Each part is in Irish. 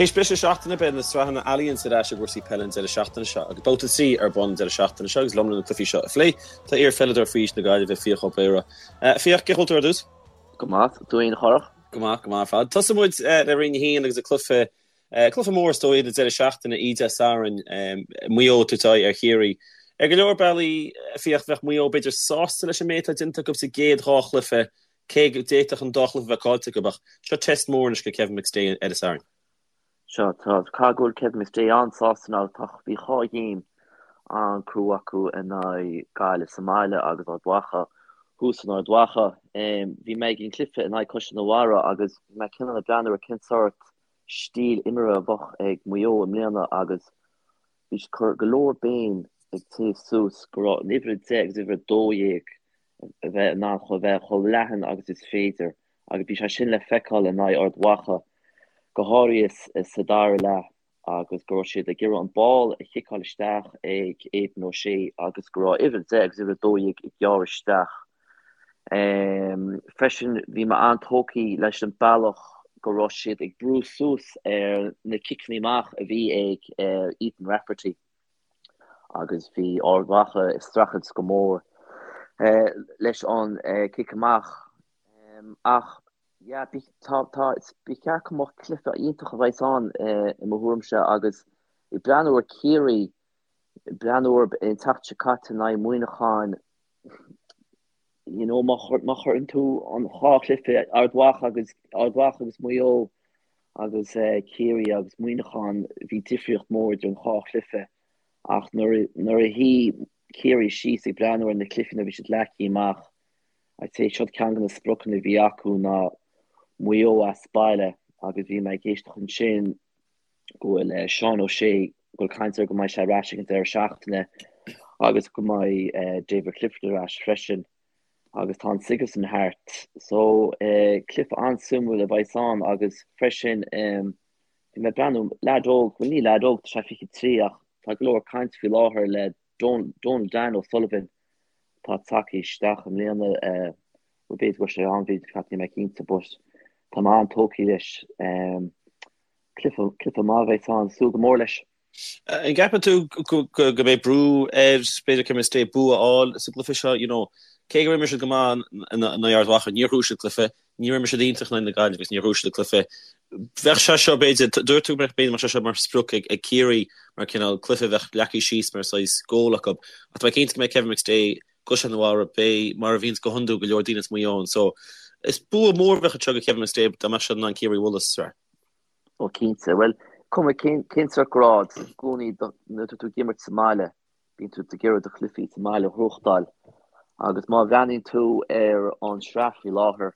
Théis briseadh seachtaine, beidh na sraitheanna Allianz ar ais i gcúrsaí peile an deireadh seachtaine seo agus babhta 3 ar bun an deireadh seachtaine seo agus liom le na cluichí seo a phlé tá iar-pheileadóir faoi aois na Gaillimhe, Fiach Ó Béarra. Fiach, cén chaoi a bhfuil tú ar dtús? Go maith, tú fhéin a Chárthach? Go maith, go maith ar fad. Tosóidh muid le Roinn 1 agus an cluiche, cluiche mór is dóigh an deireadh seachtaine, oíche Dé Sathairn, Maigh Eo ag tabhairt aghaidh ar Chiarraí. Ar go leor bealaí, Fiach, bheadh Maigh Eo b'fhéidir sásta leis an méid atá déanta acu sa gcéad dhá chluiche Cé go d'fhéadfadh an dá chluiche a bheith caillte acu, ach seo test mór anois do Kevin McStay ar an Satharn. Seo, tá, caithfidh go bhfuil Kevin McStay an-sásta now, tá, bhí dhá ghéim an-crua acu in aghaidh Gaillimh sa mbaile agus Ard Mhacha thuas in Ard Mhacha. Bhí mé ag an gcluiche in aghaidh Caisleán an Bharraigh agus bhí mé cineál ag breathnú ar cén sórt stíl imeartha a bheadh ag Maigh Eo i mbliana agus Bhí siad ag cur go leor béim ag téamh suas go raibh an uimhir 10 agus uimhir 12 a bheith in ann chomh bheith chomh leathan agus is féidir agus bhí sé sin le feiceáil in aghaidh Ard Mhacha, go háirithe sa dara leath agus go raibh siad ag iarraidh an ball a chiceáil isteach ag Aidan O'Shea agus go raibh uimhir 10 agus uimhir 12 ag gearradh isteach. Freisin, bhí mé an-tógtha leis an bealach go raibh siad ag brú suas ar na ciceanna amach a bhí ag Ethan Rafferty agus bhí Ard Mhacha ag streachailt go mór leis an cic amach. Ach yeah, tá, tá, ba cheart go mbeadh cluiche iontach a bheas ann i mo thuairimse agus ag breathnú ar Ciarraí, ag breathnú ar an tseachtain seo caite in aghaidh Muineacháin, You know, má chuireann tú an dhá chluiche, Ard Mhacha agus Ard Mhacha agus Maigh Eo agus Ciarraí agus Muineachán, bhí difríocht mór idir an dhá chluiche. Ach nuair nuair a shuigh Ciarraí síos ag breathnú ar na cluichí nuair a bhí siad leagtha amach, I'd say siod ceann de na spriocanna a bhí acu ná Maigh Eo as baile agus bhí mé ag éisteacht ansin go bhfuil Seán O'Shea, go bhfuil caint air go mbeidh sé ar ais ag an deireadh seachtaine agus go mbeidh David Clifford ar ais freisin agus tá an Sigerson thart. So cluiche an-suimiúil a bheas ann agus freisin bhí mé ag breathnú, leaid óg, bhuel ní leaid óg, tá sé 23 ach tá go leor caint faoi láthair le Donal Dan O'Sullivan atá tagtha isteach i mbliana, bhuel b'fhéidir go raibh sé ann, b'fhéidir, níl mé cinnte but tá mé an-tógtha leis. Cluiche, cluiche maith a bheas ann, súil go mór leis. An gceapann tú go mbeidh brú ar, b'fhéidir, Kevin McStay bua a fháil sa gcluiche seo? You know, cé gur imir siad go maith in aghaidh Ard Mhacha, níor bhuaigh siad cluiche, níor imir siad iontach in aghaidh na Gaillimhe agus níor bhuaigh siad an cluiche. Bheadh sé seo, b'fhéidir, dúirt tú go mbeadh, b'fhéidir, mbeadh sé seo mar sprioc ag Ciarraí, mar cineál cluiche a bheadh leagtha síos mar saghas goal acu. Ach tá mé cinnte go mbeidh Kevin McStay i gCaisleán an Bharraigh, beidh, mar a bhíonns go hiondúil, go leor daoine as Maigh Eo ann. So, is bua mór a bheadh anseo do Kevin McStay dá mbeadh siad in ann Ciarraí a bhualadh sa tsraith. Ó cinnte. Bhuel, cuma cén cén sórt grád, i gcónaí nuair atá tú ag imirt sa mbaile, bíonn tú ag iarraidh do chluichí sa mbaile a ghnóthachtáil. Agus má bhreathnaíonn tú ar an sraith faoi láthair,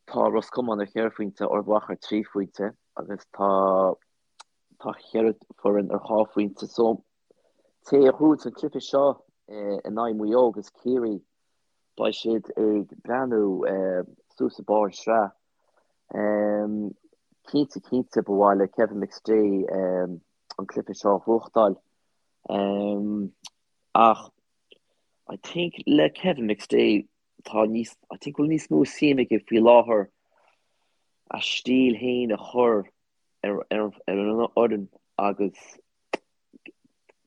tá Ros Comáin ar cheithre phointe, Ard Mhacha ar thrí phointe agus tá tá cheithre foireann ar dhá phointe. So, té a ghnóthaíonn an cluiche seo in aghaidh Maigh Eo agus Ciarraí, beidh siad ag breathnú suas ag barr an sraith. Cinnte, cinnte, ba mhaith le Kevin McStay an cluiche seo a ghnóthachtáil. Ach I think le Kevin McStay tá níos, I think go bhfuil níos mó suim aige faoi láthair a stíl féin a chur ar ar an fhoireann agus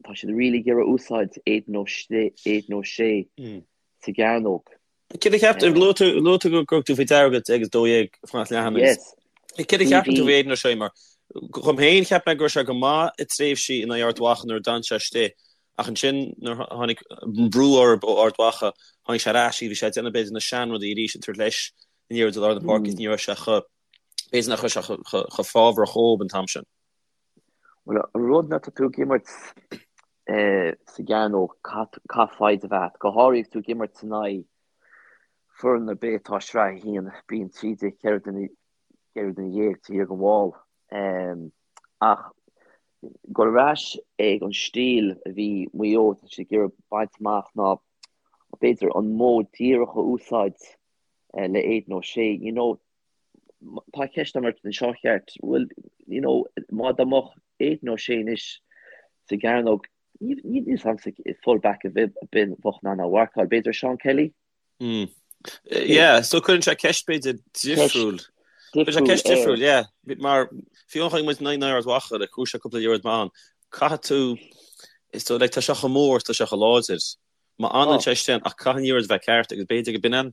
tá siad really ag iarraidh úsáid Aidan O'Shea sa gcearnóg. Céard a cheap tú, luaigh tú go raibh tú faoi deara 10 agus 12 fanacht leathan agus céard a cheapann tú faoi Aidan O'Shea mar dhom féin cheap mé go raibh sé go maith i tréimhsí in aghaidh Ard Mhacha nuair a d'fhan sé istigh ach ansin nuair a tháinig brú orthu ó Ard Mhacha tháinig sé ar ais bhí sé ag déanamh b'fhéidir na seanrudaí arís ag tabhairt leis an liathróid i lár na páirce is ní raibh sé chomh b'fhéidir nach raibh sé chomh fábharach dhóibh an t-am sin. Bhuel, an rud nuair atá tú ag imirt sa gcearnóg, caithfidh foighid a bheith agat, go háirithe agus tú ag imirt in aghaidh foireann ar bith atá i Sraith 1, bíonn 13, 14 duine taobh thiar den bhall. Ach dul ar ais ag an stíl a bhí Maigh Eo, tá siad ag iarraidh baint amach ná b'fhéidir an modh díreach a úsáid le Aidan O'Shea, you know, Tá ceist agam ort anseo ceart. Bhuel, you know, má dá mbeadh Aidan O'Shea anois sa gcearnóg, níl a fhios agamsa full back ar bith a bheadh in ann a mharcáil. B'fhéidir Sean Kelly? Mm. Yeah, so cuireann sé ceist b'fhéidir difriúil. difriúil ceist difriúil, yeah. Mar fiú amháin chonaic muid in aghaidh Ard Mhacha, like, chuaigh sé cúpla liathróid maith ann. Caithfidh tú, is dóigh, like, tá sé chomh mór, tá sé chomh láidir. Má fhanann sé istigh ann, ach caithfidh an liathróid a bheith ceart agus b'fhéidir go b'in an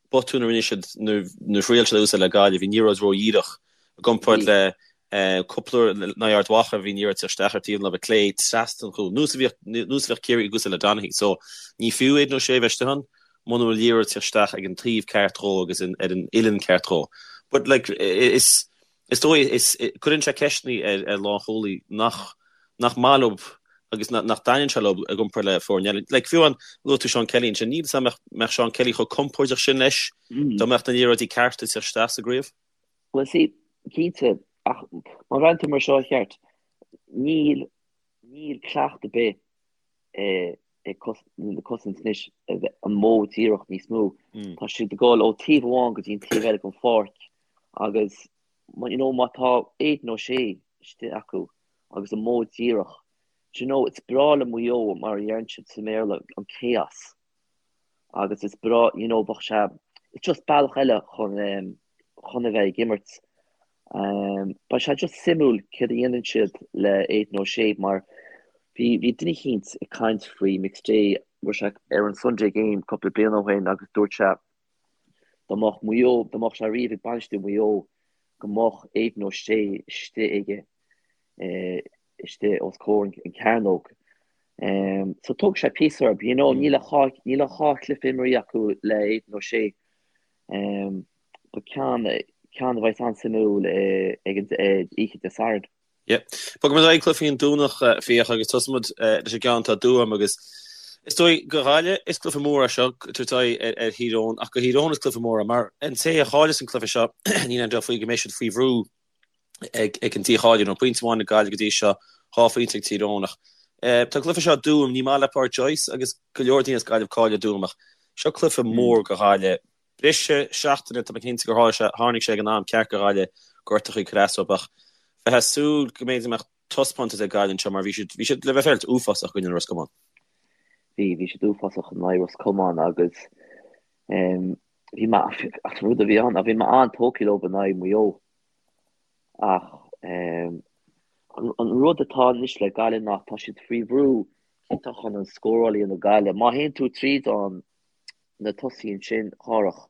botún a rinne siad nuair a thriail siad a úsáid le Gaillimh, bhí an liathróid ródhíreach i gcomparáid le cúpla uair in aghaidh Ard Mhacha, bhí an liathróid ag teacht isteach ar taobh na láimhe clé trasna an chúil, nós a bhíodh nós a bhíodh Ciarraí ag úsáid le Donaghy. So ní fiú Aidan O'Shea a bheith istigh ann muna bhfuil an liathróid ag teacht isteach ag an taobh ceart dhó agus ar an uillinn ceart dhó. But like is Is dóigh, is, cuireann sé ceisteanna ar, ar lánchúlaí nach, nach maith leo agus nach, nach dtaitníonn sé leo i gcomparáid le foirne eile. Like, fiú amháin, luaigh tú Seán Kelly ansin, níl 'fhios a'm mbeadh, mbeadh Seán Kelly chomh compordach sin leis dá mbeadh na liathróidí cearta ag teacht isteach sa gcraobh. Bhuel, see, cinnte, ach má bhreathnaíonn tú mar seo, cheart, níl, níl cleachtadh ar bith ag na cosaint anois an modh díreach níos mó. Tá siad ag dul ó taobh amháin go dtí an taobh eile den pháirc agus you know, má tá Aidan O'Shea istigh acu agus an modh díreach, do you know, it's breá le Maigh Eo mar a deireann siad sa mBéarla, an chaos. Agus is breá, you know, bheadh sé, it's just bealach eile chun, um, chun a bheith ag imirt. Um, beidh sé just suimiúil céard a dhéanann siad le Aidan O'Shea mar bhí, bhí duine eicínt ag caint faoi McStay, bhí sé ar an Sunday Game cúpla bliain ó shin agus dúirt sé dá mbeadh Maigh Eo, dá mbeadh sé riamh ag bainistiú Maigh Eo go mbeadh Aidan O'Shea istigh aige, eh, istigh os comhair an cearnóg. Um, so tógfaidh sé píosa orthu, you know, níl ach dhá, níl ach dhá chluiche imrithe acu le Aidan O'Shea. Um, But ceann, ceann a bheas an-suimiúil ag an oíche Dé Sathairn. Yeah. Bogfaidh muid ar aghaidh cluichí an Domhnach Fiach agus tosóidh muid leis an gceann atá i dTuaim agus is dóigh go Ghaillimh is cluiche mór é seo tabhairt aghaidh ar, ar Thír Eoghain ach go Thír Eoghain is cluiche mór é mar an té a chailleas an cluiche seo níl aon dabht faoi go mbeidh siad faoi bhrú ag, ag an dícháiliú. Nó pointe amháin ag Gaillimh go dtí seo, 2 phointe ag Tír Eoghain ach tá an cluiche seo i dTuaim, ní maith le Pádraic Joyce agus go leor daoine as Gaillimh cáil i dTuaim ach seo cluiche mór go Ghaillimh. Briseadh seachtaine, tá mé cinnte gur tharla sé, tháinig sé ag an am ceart go Ghaillimh, gortachaí ag cur as dóibh ach bheifeá ag súil go mb'fhéidir go mbeadh taispeántas ag Gaillimh anseo mar bhí siad, bhí siad le bheith féaráilte uafásach i gcoinne Ros Comáin. Bhí, bhí siad uafásach in aghaidh Ros Comáin agus bhí mé, ach an rud a bhí ann, bhí mé an-tógtha leo in aghaidh Mhaigh Eo ach an rud atá anois le Gaillimh ná tá siad faoi bhrú cinnte chun an scóráil a dhéanamh Gaillimh. Má théann tú tríd an na tosaithe ansin, Chárthach.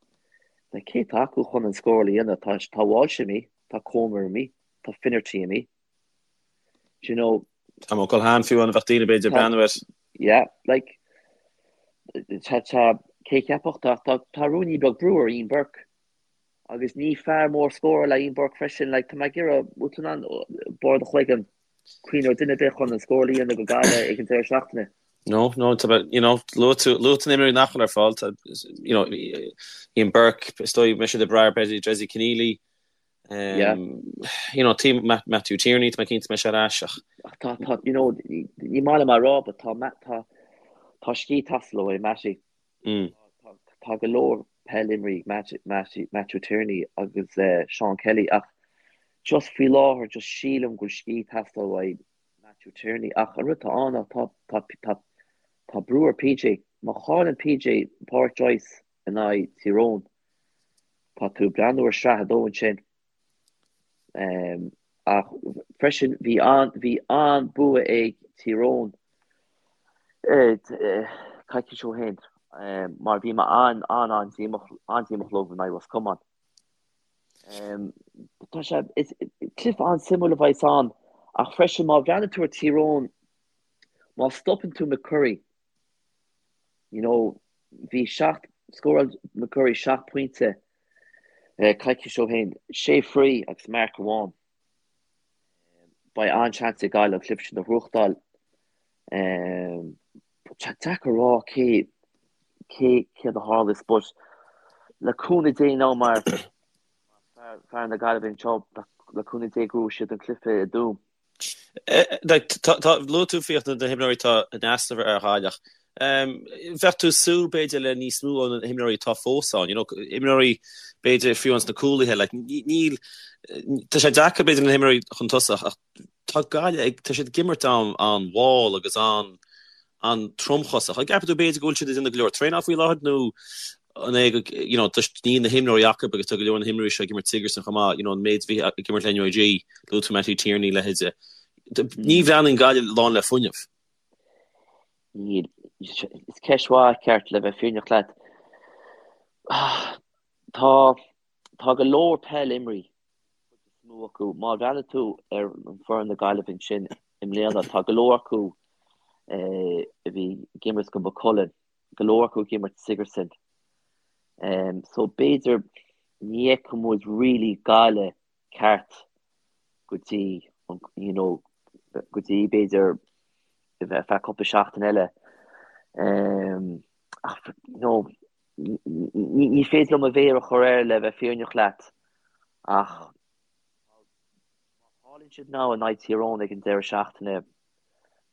Like, cé atá acu chun an scóráil a dhéanamh? Tá, tá Walsh imithe, tá Comer imithe, tá Finnerty imithe. Do you know? Tá Ó Culhane fiú ann a bheadh daoine b'fhéidir ag breathnú air. Yeah, like, tá, tá, cé cheapfadh, tá, tá, tá ruainnín beag brú ar Ian Burke. Agus ní fear mór scórála é Ian Burke freisin, like, tá mé ag iarraidh, bhfuil tú in ann barr do chloigeann cuimhneamh ar duine ar bith chun an scóráil a dhéanamh go Gaillimh ag an deireadh seachtaine? No, no, tá, you know, luaigh tú, luaigh tú na himreoirí nach bhfuil ar fáil, tá, you know, Ian Burke, is dóigh go mbeidh siad ag brath ar b'fhéidir Dessie Conneely, um, Yeah. you know, tí, Matthew Tierney, tá mé cinnte go mbeidh sé ar ais ach. Ach tá, tá, you know, ní maith liom a rá, but tá, tá, tá scíth ag teastáil ó Matty. Mm. Tá, tá go leor peil imrithe ag Matty, Matthew Tierney agus uh, Sean Kelly ach just faoi láthair just sílim go bhfuil scíth ag teastáil uaidh Matthew Tierney ach an rud atá ann ná tá, tá, tá, tá brú ar PJ. Má chailleann PJ Pádraic Joyce in aghaidh Tír Eoghain, tá tú ag breathnú ar sraith a dó ansin. Um, ach freisin bhí an, bhí an-bua ag Tír Eoghain eh, coicís ó shin um, mar bhí mé an, an, an-díomách, an-díomách leo in aghaidh Ros Comáin. Tá sé, is cluiche an-suimiúil a bheas ann ach freisin má bhreathnaíonn tú ar Tír Eoghain, má stopann tú McCurry, you know, bhí seacht, scóráil McCurry 7 pointe coicís ó shin, sé free agus marc amháin. Beidh an-seans ag Gaillimh an cluiche sin a ghnóthachtáil. Tá sé deacair a rá cé cé céard a tharlós but le cúnamh Dé now mar fear na Gaillimhe anseo le cúnamh Dé go mbuafaidh siad an cluiche i dTuaim. Tá luaigh tú Fiach na himreoirí atá in easnamh ar Ghaillimh. Bheadh tú ag súil b'fhéidir le níos mó ó na himreoirí atá fós ann, you know, imreoirí b'fhéidir fiú ins na cúlaithe, like, níl, tá sé deacair b'fhéidir na himreoirí chun tosach ach tá Gaillimh ag, tá siad ag imirt an-mhall agus an-tromchosach. An gceapann tú b'fhéidir go bhfuil siad ag déanamh go leor traenáil faoi láthair nó An é go, you know, just níl na himreoirí acu agus tá go leor na himreoirí seo ag imirt Sigerson chomh maith, you know, an méid a bhí ag imirt le NUIG, luaigh tú Mattie Tierney, leithéide. Ní bhreathnaíonn Gaillimh lán le fuinneamh. Níl. Is ceist mhaith ceart le bheith fírinneach leat. Tá, tá go leor peil imrithe, cuid is mó acu. Má bhreathnaigh tú ar an foireann na Gaillimhe ansin i mbliana, tá go leor acu a bhí ag imirt go Maigh Cuilinn. go leor acu ag imirt Sigerson. So b'fhéidir ní fheicfidh muid really Gaillimh ceart go dtí you know go dtí b'fhéidir ar feadh cúpla seachtain eile. Ach you know ní féidir liom mo mhéar a chur air le bheith fírinneach leat ach má chailleann siad now in aghaidh Tír Eoghain ag an deireadh seachtaine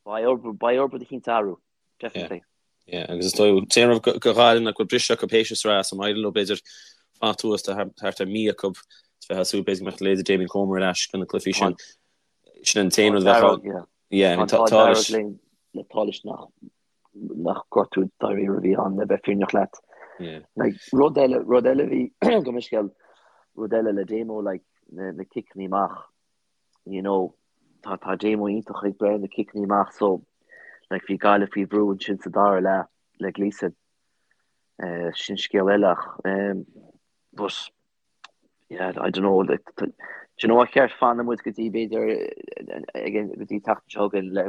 beidh orthu rud eicínt a athrú. Definitely. Yeah, agus is dóigh an t-aon rud do Ghaillimh ná go bhfuil briseadh acu théis an sraith, so má éiríonn leo b'fhéidir fanacht thuas tá thart ar mí acu is bheith ag súil b'fhéidir go mbeadh leithéide Damien Comer ar ais do na cluichí sin. Sin an t-aon rud a bheadh ann. Yeah, I mean, tá tá leis. Le tá leis nach nach gortú dáiríre a bhí ann le bheith fírinneach leat. Yeah. Like, rud eile, rud eile bhí gabh mo leithscéal, rud eile le Damo, like, na, na ciceanna amach. you know, tá, tá Damo iontach ag breith na ciceanna amach so, like, bhí Gaillimh faoi bhrú ansin sa dara leath le Gleeson. Uh, sin scéal eile ach, um, but, yeah, I don't know, like, do you know what ceart fanfaidh muid go dtí b'fhéidir ag go dtí tseachtain seo chugainn le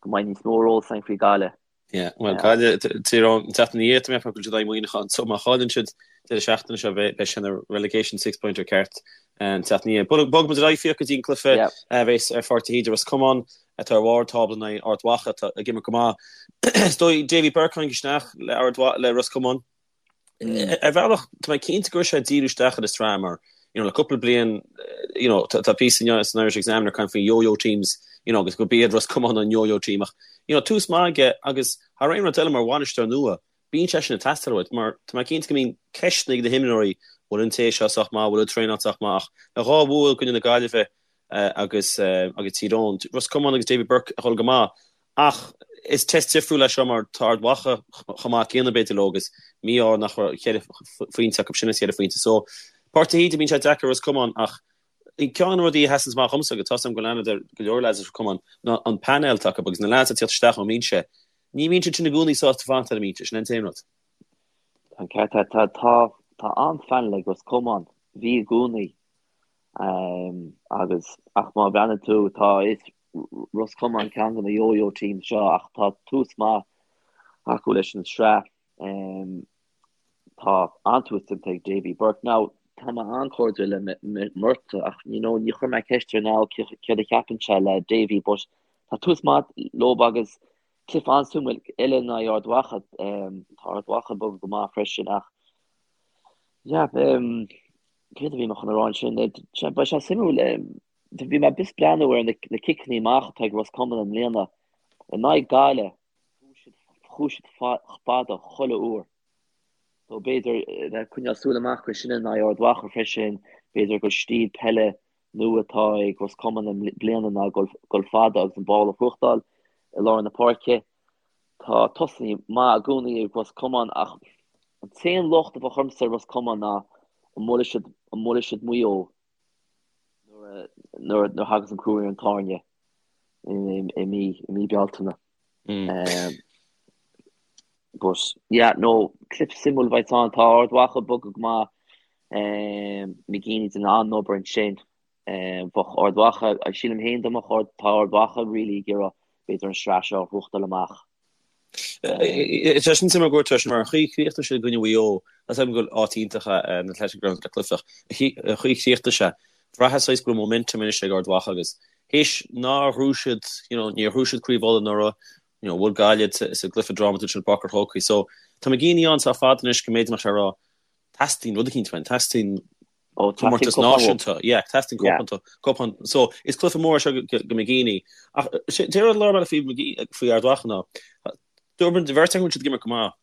go mbeidh níos mó eolas againn faoi Gaillimh. Yeah, well, Gaillimh, Tír Eoghain, an tseachtain ina dhiaidh, tá mé ag ceapadh go bhfuil siad ag Muineachán, so má chailleann siad deireadh seachtaine seo, beidh sé ina relegation six-pointer ceart an tseachtain ina dhiaidh. Bogfaidh muid ar aghaidh Fiach go dtí an cluiche a bheas ar Pháirc de hÍde, Ros Comáin atá ar bharr tábla in aghaidh Ard Mhacha atá ag imirt go maith. Is dóigh Davy Burke tháinig isteach le Ard le Ros Comáin. Ar bhealach, tá mé cinnte go raibh sé ag díriú isteach ar an sraith mar, you know, le cúpla bliain, you know, tá píosa inniu san Irish Examiner ag caint faoi yo-yo teams, you know, agus go b'iad Ros Comáin an yo-yo team ach, you know, tús maith aige agus thar aon rud eile mar bhainisteoir nua, bíonn sé sin ag teastáil uait mar tá mé cinnte go mbíonn ceisteanna ag na himreoirí, bhfuil an té seo sách maith, bhfuil an traenáil sách maith ach le dhá bhua i gcoinne na Gaillimhe agus agus Tír Eoghain, Ros Comáin agus Davy Burke ag dul go maith ach is test difriúil é seo mar tá Ard Mhacha chomh maith céanna b'fhéidir leo agus mí-ádh nach raibh cheithre phointe acu sin is cheithre phointe. So Páirc de hÍde bíonn sé deacair Ros Comáin ach ceann de na rudaí a sheasann amach dhomsa agus tá 's agam go bhfuil aithne ar go leor lads as Ros Comáin ná an painéal atá acu agus na lads ag tíocht isteach ón mbinse. Ní bhíonn siad sin i gcónaí sásta fanacht ar an mbinse, sin an t-aon rud. Tá an ceart agat. Tá tá tá an-phainéal ag Ros Comáin. Bhí i gcónaí. Agus, ach má bhreathnaíonn tú, tá, is Ros Comáin ceann de na yo-yo teams seo ach tá tús maith acu leis an sraith. Tá an-tús déanta ag Davy Burke. Now, tá mé an-chairdiúil le Murtagh ach, you know, ní chuir mé ceist air now céard a cheapann sé le Davy but tá tús maith leo agus cluiche an-suimiúil eile in aghaidh Ard Mhacha. Tá Ard Mhacha ag bogadh go maith freisin ach, yeah, Céard a bhí mé chun a rá ansin? Beidh sé suimiúil. Bhí mé just breathnú ar na ciceanna amach atá ag Ros Comáin i mbliana. In aghaidh Gaillimh, chuaigh siad fada chuile uair. So b'fhéidir bheith coinneáil súil amach go sin in aghaidh Ard Mhacha freisin, b'fhéidir gur stíl peile nua atá ag Ros Comáin i mbliana ná dul fada agus an ball a ghnóthachtáil i lár na páirce. Tá tosaithe maith i gcónaí ag Ros Comáin ach an t-aon locht a bheadh ormsa ar Ros Comáin ná an mbuailfidh siad, an mbuailfidh siad Maigh Eo nuair nuair a thagas an crú ar an tairne i mí i mí Bealtaine. But yeah, no, cluiche suimiúil a bheidh ann. Tá Ard Mhacha ag bogadh go maith. McGeeney ag déanamh an-obair ansin. Bheadh Ard Mhacha, sílim féin dá mbeadh Ard, tá Ard Mhacha really ag iarraidh b'fhéidir an sraith seo a ghnóthachtáil amach. Tá sin suimiúil go dúirt mar an chaoi chríochnaigh sé i gcoinne Mhaigh Eo, tá 's agam go bhfuil áit iontach an Athletic Grounds le cluiche ach an chaoi chríochnaigh sé, bhraitheas saghas go raibh momentum anois ag Ard Mhacha agus théis nár ghnóthaigh siad, you know, níor ghnóthaigh siad Craobh Uladh anuraidh, you know, bhuail Gaillimh sa gcluiche drámatúil sin i bPáirc an Chrócaigh. So tá McGeeney ann sách fada anois go mb'fhéidir go mbeadh sé ag rá teastaíonn rud eicínt uainn, teastaíonn Ó, comórtas teastaíonn cupán náisiúnta. Yeah, teastaíonn Yeah. cupán, cupán. So, is cluiche mór é seo go, go McGeeney. Ach sé an rud lár bealaigh faoi McGee, faoi Ard Mhacha ná, dúirt an bheirt acu go bhfuil siad ag imirt go maith.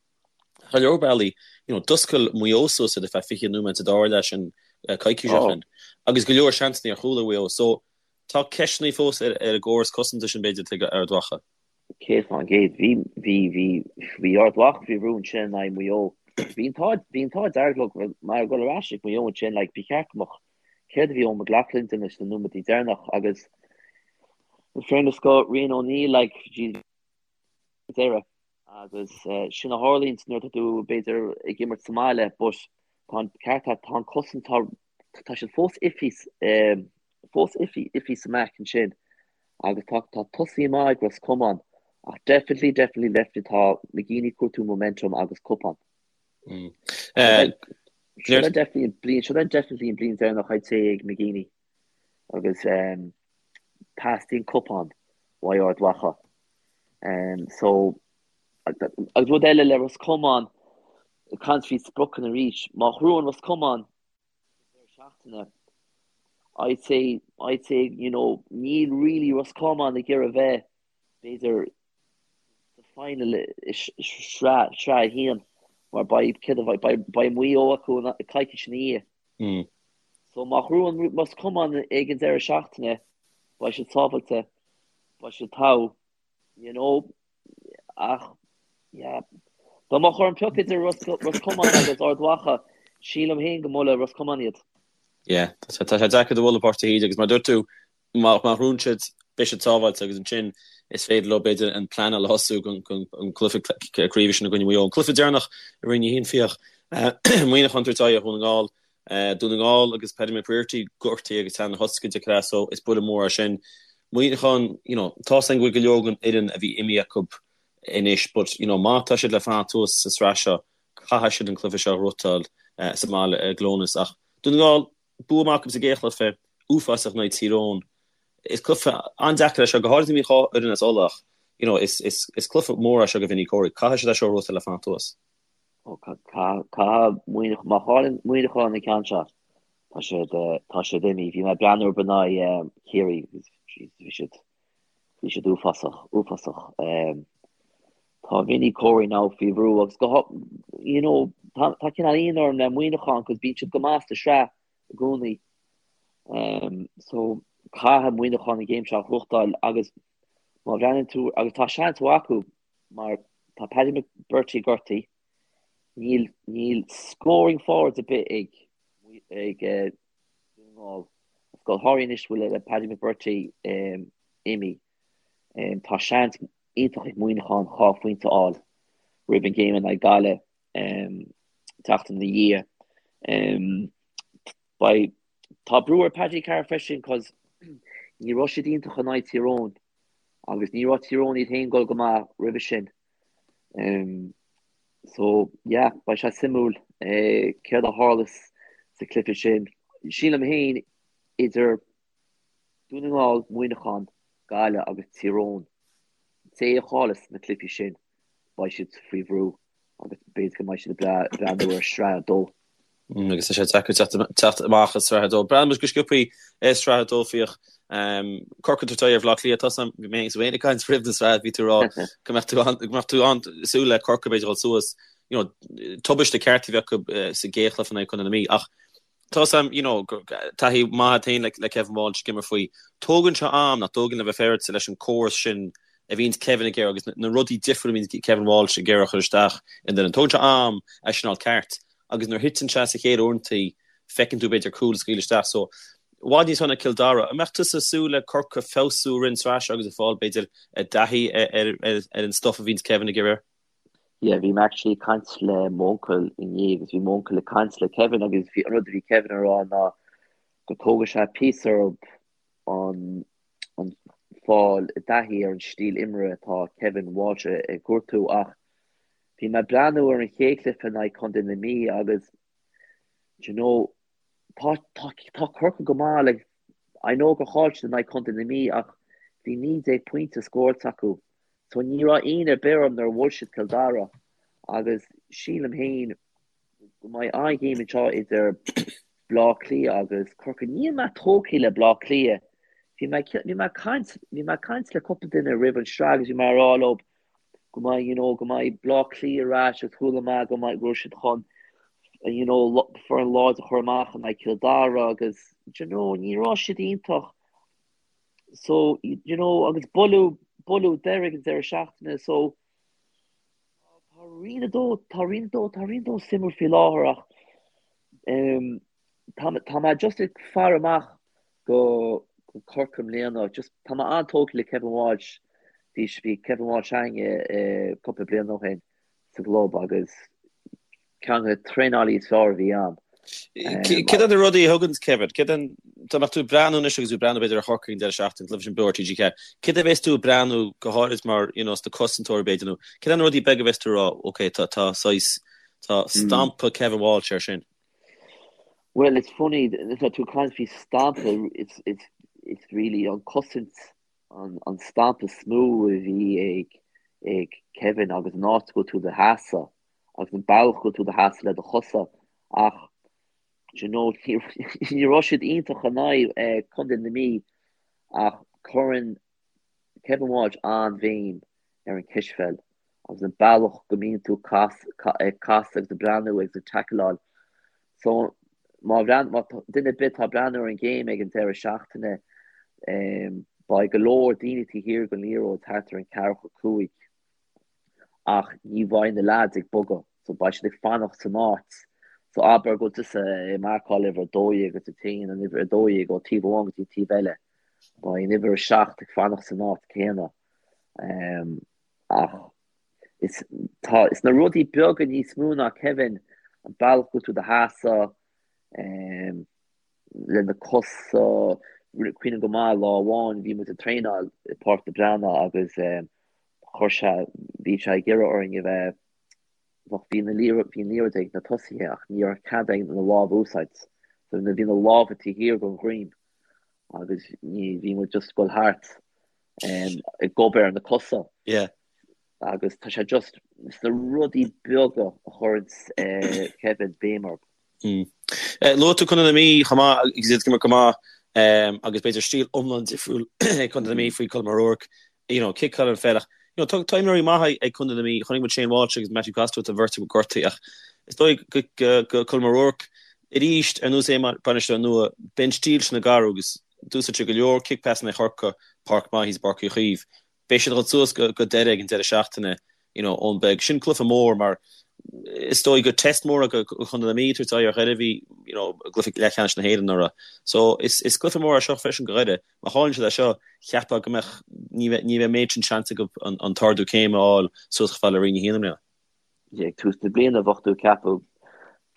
Ar leor bealaí, you know, d'oscail Maigh Eo suas iad ar feadh 20 nóiméad sa dara leath sin coicís ó Ó. shin. Agus go leor seansanna ar chúl ag Maigh Eo. So, tá ceisteanna fós ar, ar an gcóras cosanta sin b'fhéidir ag Ard Mhacha. 100%. Bhí, bhí, bhí, bhí Ard Mhacha faoi bhrú ansin in aghaidh Mhaigh Eo. Bhí an t-ádh bhí an t-ádh dearg leo mar ag dul ar ais ag Maigh Eo ansin like ba cheart go mbeadh céard a bhí Eoin McLaughlin ag déanamh sna nóiméadaí deireanach agus in fairness go Rian O'Neill like geez deireadh agus sin a tharlaíonn nuair atá tú b'fhéidir ag imirt sa mbaile but tá an ceart agat tá an cosaint tá tá siad fós iffy fós iffy iffy sa mback ansin agus tá tá tosaí maith ag Ros Comáin ach definitely definitely definitely tá McGeeney ag cuartú momentum agus cupán. Seo é definitely an bliain seo é definitely an bliain deireanach I'd say ag McGeeney agus teastaíonn cupán uaidh Ard Mhacha. So agus rud eile le Ros Comáin ag caint faoi spriocanna arís má ghnóthaíonn Ros Comáin deireadh seachtaine I'd say I'd say you know níl really Ros Comáin ag iarraidh bheith b'fhéidir sa final i sraith sraith a haon mar beidh céard a bheidh beidh beidh Maigh Eo acu coicís ina dhiaidh. So má ghnóthaíonn Ros Comáin ag an deireadh seachtaine beidh siad sábhailte beidh siad togha you know ach yeah dá mbeadh orm piocadh idir Ros Ros Comáin agus Ard Mhacha sílim féin go mbuailfidh Ros Comáin iad. Yeah tá sé deacair do bhualadh Páirc de hÍde agus mar dúirt tú má má ghnóthaíonn siad beidh siad sábháilte agus ansin is féidir leo b'fhéidir an pleanáil a thosú don an cluiche craoibhe sin i gcoinne Mhaigh Eo. An cluiche deireanach i Roinn 1 Fiach Muineachán ag tabhairt aghaidh ar Dhún na nGall. Dún na nGall agus Paddy McBrearty gortaithe agus teann na thosca de creas so is buille mór é sin. Muineachán, you know, tá's againn go bhfuil go leor den fhoireann a bhí imithe acu anois but, you know, má tá siad le fanacht thuas sa sraith seo caithfidh siad an cluiche seo a ghnóthachtáil sa mbaile i gClónas. Ach Dún na nGall, bua maith acu sa gcéad chluiche, uafásach in aghaidh Tír Eoghain. Is cluiche an-deacair é seo, go háirithe má bhíonn dhá fhoireann as Uladh ach, you know, is, is, is cluiche mór é seo do Vinny Corey. Caithfidh siad é seo a ghnóthachtáil le fanacht thuas. Ó, caithfidh Muineachán, má chailleann Muineachán an ceann seo, tá siad, tá siad imithe. Bhí mé ag breathnú orthu in aghaidh Chiarraí agus bhí siad, bhí siad uafásach, uafásach. Tá Vinny Corey now faoi bhrú agus go, you know, tá, tá cineál ionadh orm le Muineachán cos bíonn siad go maith sa sraith i gcónaí. So, caithfidh Muineachán an game seo a ghnóthachtáil agus má bhreathnaíonn tú, agus tá seans mhaith acu mar tá Paddy McBrearty gortaithe, níl, níl scoring forwards ar bith ag, ag Dún na nGall. Agus go háirithe anois go bhfuil Paddy McBrearty imithe. Tá seans iontach ag Muineachán 2 phointe a fháil roimh an game in aghaidh Gaillimh tseachtain ina dhiaidh. Beidh, tá brú ar Paddy Carr freisin cos ní raibh siad iontach in aghaidh Tír Eoghain. Agus ní raibh Tír Eoghain iad féin ag dul go maith roimhe sin. So, yeah, beidh sé suimiúil céard a tharlós sa chluiche sin. Sílim féin idir Dún na nGall, Muineachán, Gaillimh agus Tír Eoghain, té a chailleas na cluichí sin, beidh siad faoi bhrú agus b'fhéidir go mbeidh siad ag breathnú ar Sraith 2. Agus tá sé deacair teacht amach as Sraith 2. Breathnaíonn muid go sciobthaí ar Sraith 2 Fiach. Corcaigh ag tabhairt aghaidh ar Bhaile Átha Cliath. Tá bhí mé féin ag caint roimh na sraith, bhí tú ag rá go mbeadh tú go mbeadh tú an-súil le Corcaigh b'fhéidir dhul suas. You know, tubaiste ceart a bhí acu sa gcéad chluiche in aghaidh Chontae na Mí. Ach tá sam, you know, taithí maith agat féin le Kevin Walsh ag imirt faoi. Tógann sé am nach dtógann le bheith féaráilte leis an córas sin a bhíonns Kevin ag iarraidh agus na rudaí difriúla a bhíonns Kevin Walsh ag iarraidh a chur isteach in duine. Tógann sé am é sin a fháil ceart agus nuair a thiteann sé sa chéad uaireantaí feiceann tú b'fhéidir cúl a scaoileadh isteach. So, i bhfad níos fearr ná Cill Dara. An mbeadh tusa ag súil le Corcaigh feabhsú i rith an tsraith seo agus ag fáil b'fhéidir i dtaithí ar an stuff a bhíonns Kevin ag iarraidh? Yeah, bhí mé actually ag caint le m'uncail inné agus bhí m'uncail ag caint le Kevin agus bhí an rud a bhí Kevin ag rá ná go dtógfaidh sé píosa orthu an an fáil i dtaithí ar an stíl imeartha atá Kevin Walsh ag cuartú ach bhí mé ag breathnú ar an chéad chluiche in aghaidh Contae na Mí agus do you know tá tá tá Corcaigh go maith like I know gur chaill siad in aghaidh Contae na Mí ach bhí 19 pointe scóráilte acu So ní raibh ionadh ar bith orm nuair a bhuail siad Cill Dara agus sílim féin go mbeidh an-ghéim anseo idir Bleá Cliath agus Corcaigh. Níl mé tógtha le Bleá Cliath. Bhí mé bhí mé ag caint bhí mé ag caint le cúpla duine roimh an sraith agus bhí mé ag rá leo go mbeidh you know go mbeidh Bleá Cliath ar ais agus chuala mé go mbeidh go raibh siad chun you know foireann láidir a chur amach in aghaidh Cill Dara agus you know ní raibh siad iontach. So, you know, agus buaileadh, buaileadh Doire ag an deireadh seachtaine, so tá Tá Roinn 2, tá Roinn 2, tá Roinn 2 suimiúil faoi láthair ach tá tá mé just ag faire amach go go Corcaigh i mbliana. Just tá mé an-tógtha le Kevin Walsh. Bhí bhí Kevin Walsh againne cúpla bliain ó shin sa gclub agus ceann de na traenálaí is fearr a bhí ann. Céard iad na rudaí a thugann Kevin? Céard an dá mbeadh tú ag breathnú anois agus tú ag breathnú b'fhéidir ar Chorcaigh an deireadh seachtaine, cluiche sin beo ar TG4, céard a bheas tú ag breathnú go háirid mar you know sna cosantóirí b'fhéidir nó céard iad na rudaí beaga a bheas tú ag rá ok tá tá saghas tá stampa Kevin Walsh air sin? Well it's funny tá tú ag caint faoi stampa it's it's it's really an cosaint an an stampa is mó a bhí ag ag Kevin agus an áit go bhfuil tú i do sheasamh agus an bealach go bhfuil tú i do sheasamh le do chosa ach do you know ní raibh siad iontach in aghaidh Contae na Mí ach cuireann Kevin Walsh an-bhéim ar an cispheil agus an bealach go mbíonn tú ag casadh agus ag breathnú agus ag tackleáil. So má bhreath má duine ar bith atá ag breathnú ar an game ag an deireadh seachtaine beidh go leor daoine taobh thiar den liathróid thart ar an ceathracha 5. Ach ní bheidh na leaids ag bogadh, so beidh siad ag fanacht san áit. So abair go bhfuil tusa ag marcáil uimhir 12 agus ag téann an uimhir 12 ó taobh amháin go dtí an taobh eile, beidh an uimhir 7 ag fanacht san áit céanna. Ach is tá is na rudaí beaga níos mó ná Kevin, an bealach go bhfuil tú i do sheasamh, le na cosa, cuimhním go maith lá amháin bhí muid ag traenáil i Páirc na Breathnach agus Chuir sé, bhí sé ag iarraidh orainn a bheith, bheadh, bhí na liathróid, bhí an liathróid ag na tosaithe ach ní raibh cead againn na lámha a úsáid. So bhí na lámha taobh thiar den dhroim agus ní, bhí muid just ag dul thart ag obair ar na cosa. Yeah. Agus tá sé just, is na rudaí beaga a chuireann Kevin béim orthu. Luaigh tú Contae na Mí chomh maith agus iad ag imirt go maith agus b'fhéidir stíl iomlán difriúil ag Contae na Mí faoi Colm O'Rourke, you know, ciceáil an pheil ach you know, tá tá imreoirí maithe ag Contae na Mí, chonaic muid Shane Walsh agus Matthew Costello tá an bheirt acu gortaithe ach is dóigh go go go Colm O'Rourke arís ar nós é mar bainisteoir nua, beidh an stíl sin ag athrú agus d'úsáid sé go leor kick passanna i Chorcaigh, páirc maith thíos i bPáirc Uí Chaoimh. Beidh siad ag dul suas go Doire ag an deireadh seachtaine you know Eoin Beag. Sin cluiche mór mar is dóigh gur test mór é do Chontae na Mí tabhairt aghaidh ar Dhoire a bhí you know i gcluiche leathcheannais na hÉireann anuraidh. So is is cluiche mór é seo freisin do Dhoire. Má chailleann siad é seo, cheapfá go mbeadh ní bheidh ní bheidh an méid sin seans acu an an t-ardú céime a fháil suas chomh fada le Roinn 1 i mbliana. Ag tús na bliana bheadh tú ag ceapadh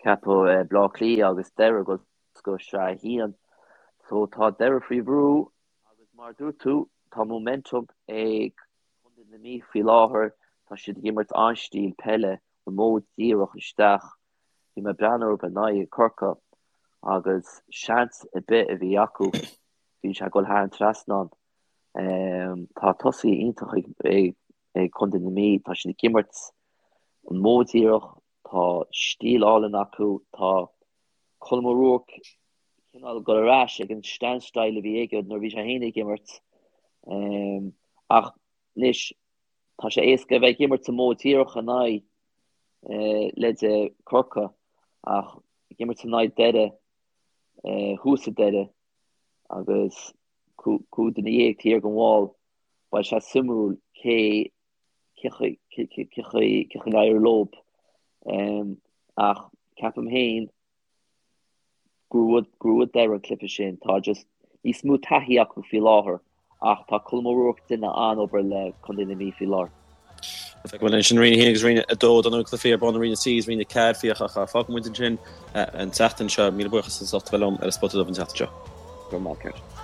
ceapadh Bleá Cliath agus Doire ag dul go Sraith 1. So tá Doire faoi bhrú Agus mar a dúirt tú, tá momentum ag Contae na Mí faoi láthair, tá siad ag imirt an-stíl peile, an modh díreach isteach. Bhí mé ag breathnú orthu in aghaidh Corcaigh agus seans ar bith a bhí acu, bhí sé ag dul thar an trasnán. Tá tosaithe iontach ag Contae na Mí, tá siad ag imirt an modh díreach, tá stíl álainn acu, tá Colm O'Rourke cineál ag dul ar ais ag an sean-style a bhí aige nuair a bhí sé féin ag imirt. Ach anois tá sé éasca a bheith ag imirt an modh díreach in aghaidh leithéide Corcaigh ach ag imirt in aghaidh Doire thuas i Doire agus 15 duine taobh thiar den bhall beidh sé suimiúil cé cé chaoi a n-éireoidh leo. Ach ceapaim féin gur bhuaigh Doire an cluiche sin. Tá just níos mó taithí acu faoi láthair ach tá Colm O'Rourke ag déanamh an-obair le Contae na Mí faoi láthair. Feicfidh muid ansin Roinn 1 agus Roinn 2 dar ndóigh cluichí ar bun i Roinn 3 agus Roinn 4 Fiach ach fágfaidh muid ansin an tseachtain seo. Míle buíochas as ucht a bheith liom ar an Spota Dubh an tseachtain seo. Go raibh maith agat.